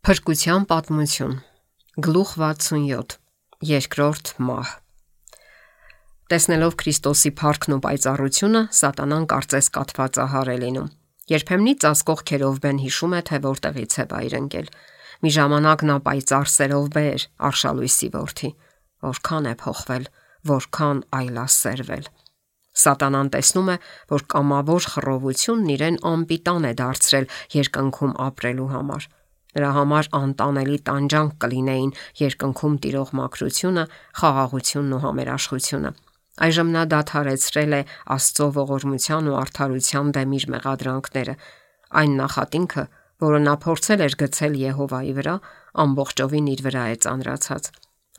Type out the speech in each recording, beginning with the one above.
Փրկության պատմություն, գլուխ 67, երկրորդ մահ։ Տեսնելով Քրիստոսի փառքն ու պայծառությունը, Սատանան կարծես կաթված է լինում։ Երբեմնի ծածկող քերովբեն հիշում է, թե որտեղից է վայր ընկել։ Մի ժամանակ նա պայծառ սերով բեր, արշալույսի որդի, որքան է փոխվել, որքան այլասերվել։ Սատանան տեսնում է, որ կամավոր խռովությունն իրեն անպիտան է դարձրել երկնքում ապրելու համար։ Նրա համար անտանելի տանջանք կլինեին երկնքում տիրող մաքրությունը, խաղաղությունն ու համերաշխությունը։ Այժմ նա դադարեցրել է Աստծո ողորմության ու արդարության դեմ իր մեղադրանքները։ Այն նախատինքը, որը նա փորձել էր գցել Եհովայի վրա, ամբողջովին իր վրա է ծանրացած։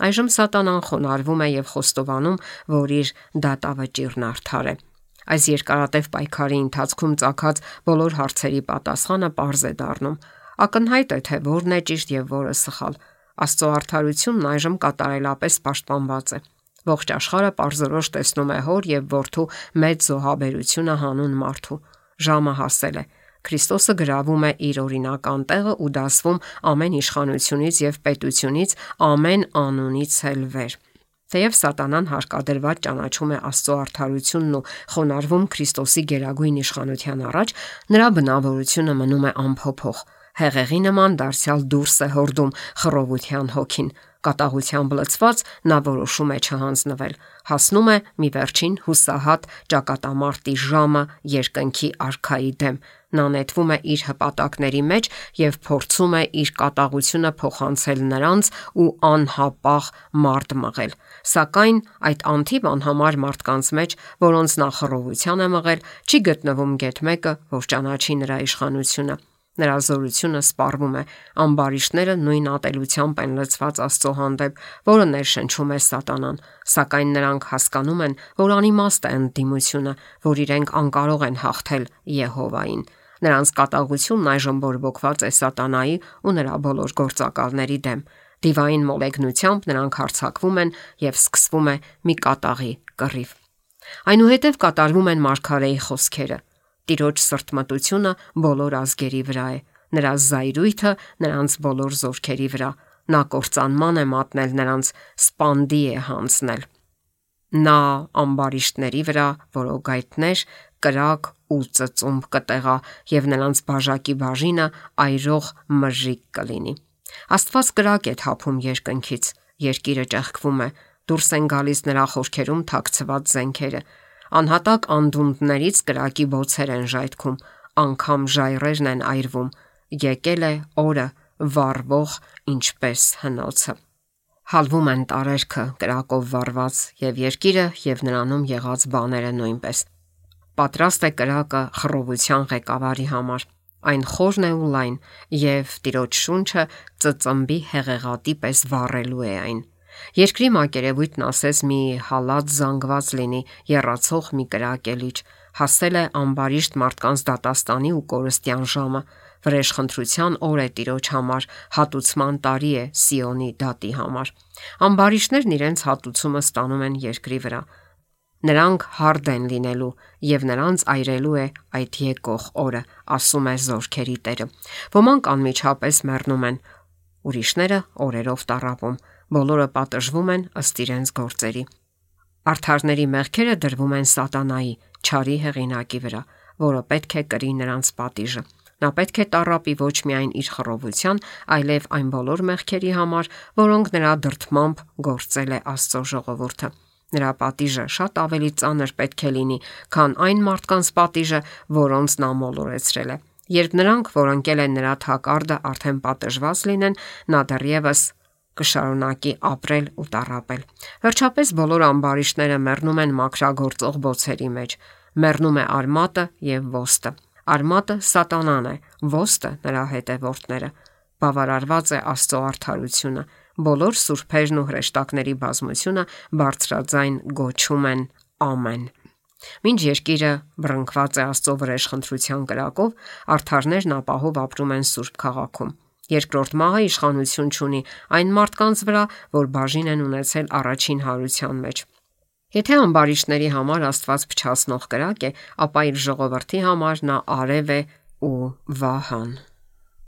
Այժմ Սատանան խոնարհվում է եւ խոստովանում, որ իր դատավճիռն արդար է։ Այս երկարատև պայքարի ընթացքում ծագած բոլոր հարցերի պատասխանը պարզ է դառնում։ Ակնհայտ է, թե որն է ճիշտ եւ որը սխալ։ Աստծո արդարությունն այժմ կատարելապես պաշտպանված է։ Ողջ աշխարհը պարզորոշ տեսնում է հոր եւ որդու մեծ զոհաբերությունը հանուն մարդու։ Ժամը հասել է։ Քրիստոսը գրավում է իր օրինական տեղը ու դասվում ամեն իշխանությունից եւ պետությունից, ամեն անունից էլ վեր։ Թեև Սատանան հարկադրված ճանաչում է Աստծո արդարությունն ու խոնարհվում Քրիստոսի գերագույն իշխանության առաջ, նրա բնավորությունը մնում է անփոփոխ։ Հեղեղի նման դարձյալ դուրս է հորդում խռովության հոգին։ Կատաղությամբ լցված նա որոշում է չհանձնվել, հասնում է մի վերջին հուսահատ ճակատամարտի ժամը երկնքի արքայի դեմ։ Նա նետվում է իր հպատակների մեջ եւ փորձում է իր կատաղությունը փոխանցել նրանց ու անհապաղ մարդ մղել։ Սակայն այդ անթիվ անհամար մարդկանց մեջ, որոնց նա խռովության է մղել, չի գտնվում գեթ մեկը, որ ճանաչի նրա իշխանությունը։ Նրա զորությունը սպառվում է, ամբարիշտները նույն ատելությամբ են լցված Աստծո հանդեպ, որը ներշնչում է Սատանան, սակայն նրանք հասկանում են, որ անիմաստ է ընդդիմությունը, որ իրենք անկարող են հաղթել Եհովային։ Նրանց կատաղությունն այժմ բորբոքված է Սատանայի ու նրա բոլոր գործակալների դեմ։ Դիվային մոլեգնությամբ նրանք հարձակվում են եւ սկսվում է մի կատաղի կռիվ։ Այնուհետև կատարվում են մարգարեի խոսքերը. Տիրոջ սրտմտությունը բոլոր ազգերի վրա է, նրա զայրույթը նրանց բոլոր զորքերի վրա, նա կործանման է մատնել նրանց, սպանդի է հանձնել։ Նա ամբարիշտների վրա որոգայթներ, կրակ ու ծծումբ կտեղա եւ նրանց բաժակի բաժինը այրող մրրիկ կլինի։ Աստված կրակ է թափում երկնքից, երկիրը ճեղքվում է, դուրս են գալիս նրա խորքերում թաքցված զենքերը։ Անհատակ անդունդներից կրակի բոցեր են ժայթքում, անգամ ժայռերն են այրվում։ Եկել է օրը վառվող ինչպես հնոցը։ Հալվում են տարերքը կրակով վառված եւ երկիրը եւ նրանում եղած բաները նույնպես։ Պատրաստ է կրակը խռովության ղեկավարի համար։ Այն խորն է ու լայն եւ Տիրոջ շունչը ծծմբի հեղեղատի պես վառելու է այն։ Երկրի մակերևույթն ասես մի հալած զանգված լինի, եռացող մի կրակելիճ։ Հասել է ամբարիշտ մարդկանց դատաստանի ու կորստյան ժամը։ Վրեժխնդրության օր է Տիրոջ համար, հատուցման տարի է Սիոնի դատի համար։ Ամբարիշտներն իրենց հատուցումը ստանում են երկրի վրա։ Նրանք հարդ են լինելու եւ նրանց այրելու է այդ եկող օրը, ասում է Զորքերի Տերը։ Ոմանք անմիջապես մեռնում են, ուրիշները օրերով տառապում, բոլորը պատժվում են ըստ իրենց գործերի։ Արդարների մեղքերը դրվում են Սատանայի, չարի հեղինակի վրա, որը պետք է կրի նրանց պատիժը։ Նա պետք է տառապի ոչ միայն իր խռովության, այլև այն բոլոր մեղքերի համար, որոնք նրա դրդմամբ գործել է Աստծո ժողովուրդը։ Նրա պատիժը շատ ավելի ծանր պետք է լինի, քան այն մարդկանց պատիժը, որոնց նա մոլորեցրել է։ Երբ նրանք, որ ընկել են նրա թակարդը, արդեն պատժված լինեն, նա դեռևս կշարունակի ապրել ու տառապել։ Վերջապես բոլոր ամբարիշտները մեռնում են մաքրագործող բոցերի մեջ։ Մեռնում է արմատը եւ ոստը։ Արմատը Սատանան է, ոստը նրա հետևորդները։ Բավարարված է Աստծո արդարությունը։ Բոլոր սուրբերն ու հրեշտակների բազմությունը բարձրաձայն գոչում են ամեն։ Մինչ երկիրը բռնկված է Աստծո վրեժխնդրության կրակով, արդարներն ապահով ապրում են Սուրբ քաղաքում։ Երկրորդ մահը իշխանություն չունի այն մարդկանց վրա, որ բաժին են ունեցել առաջին հարության մեջ։ Եթե ամբարիշտների համար Աստված փչացնող կրակ է, ապա իր ժողովրդի համար նա արև է ու վահան։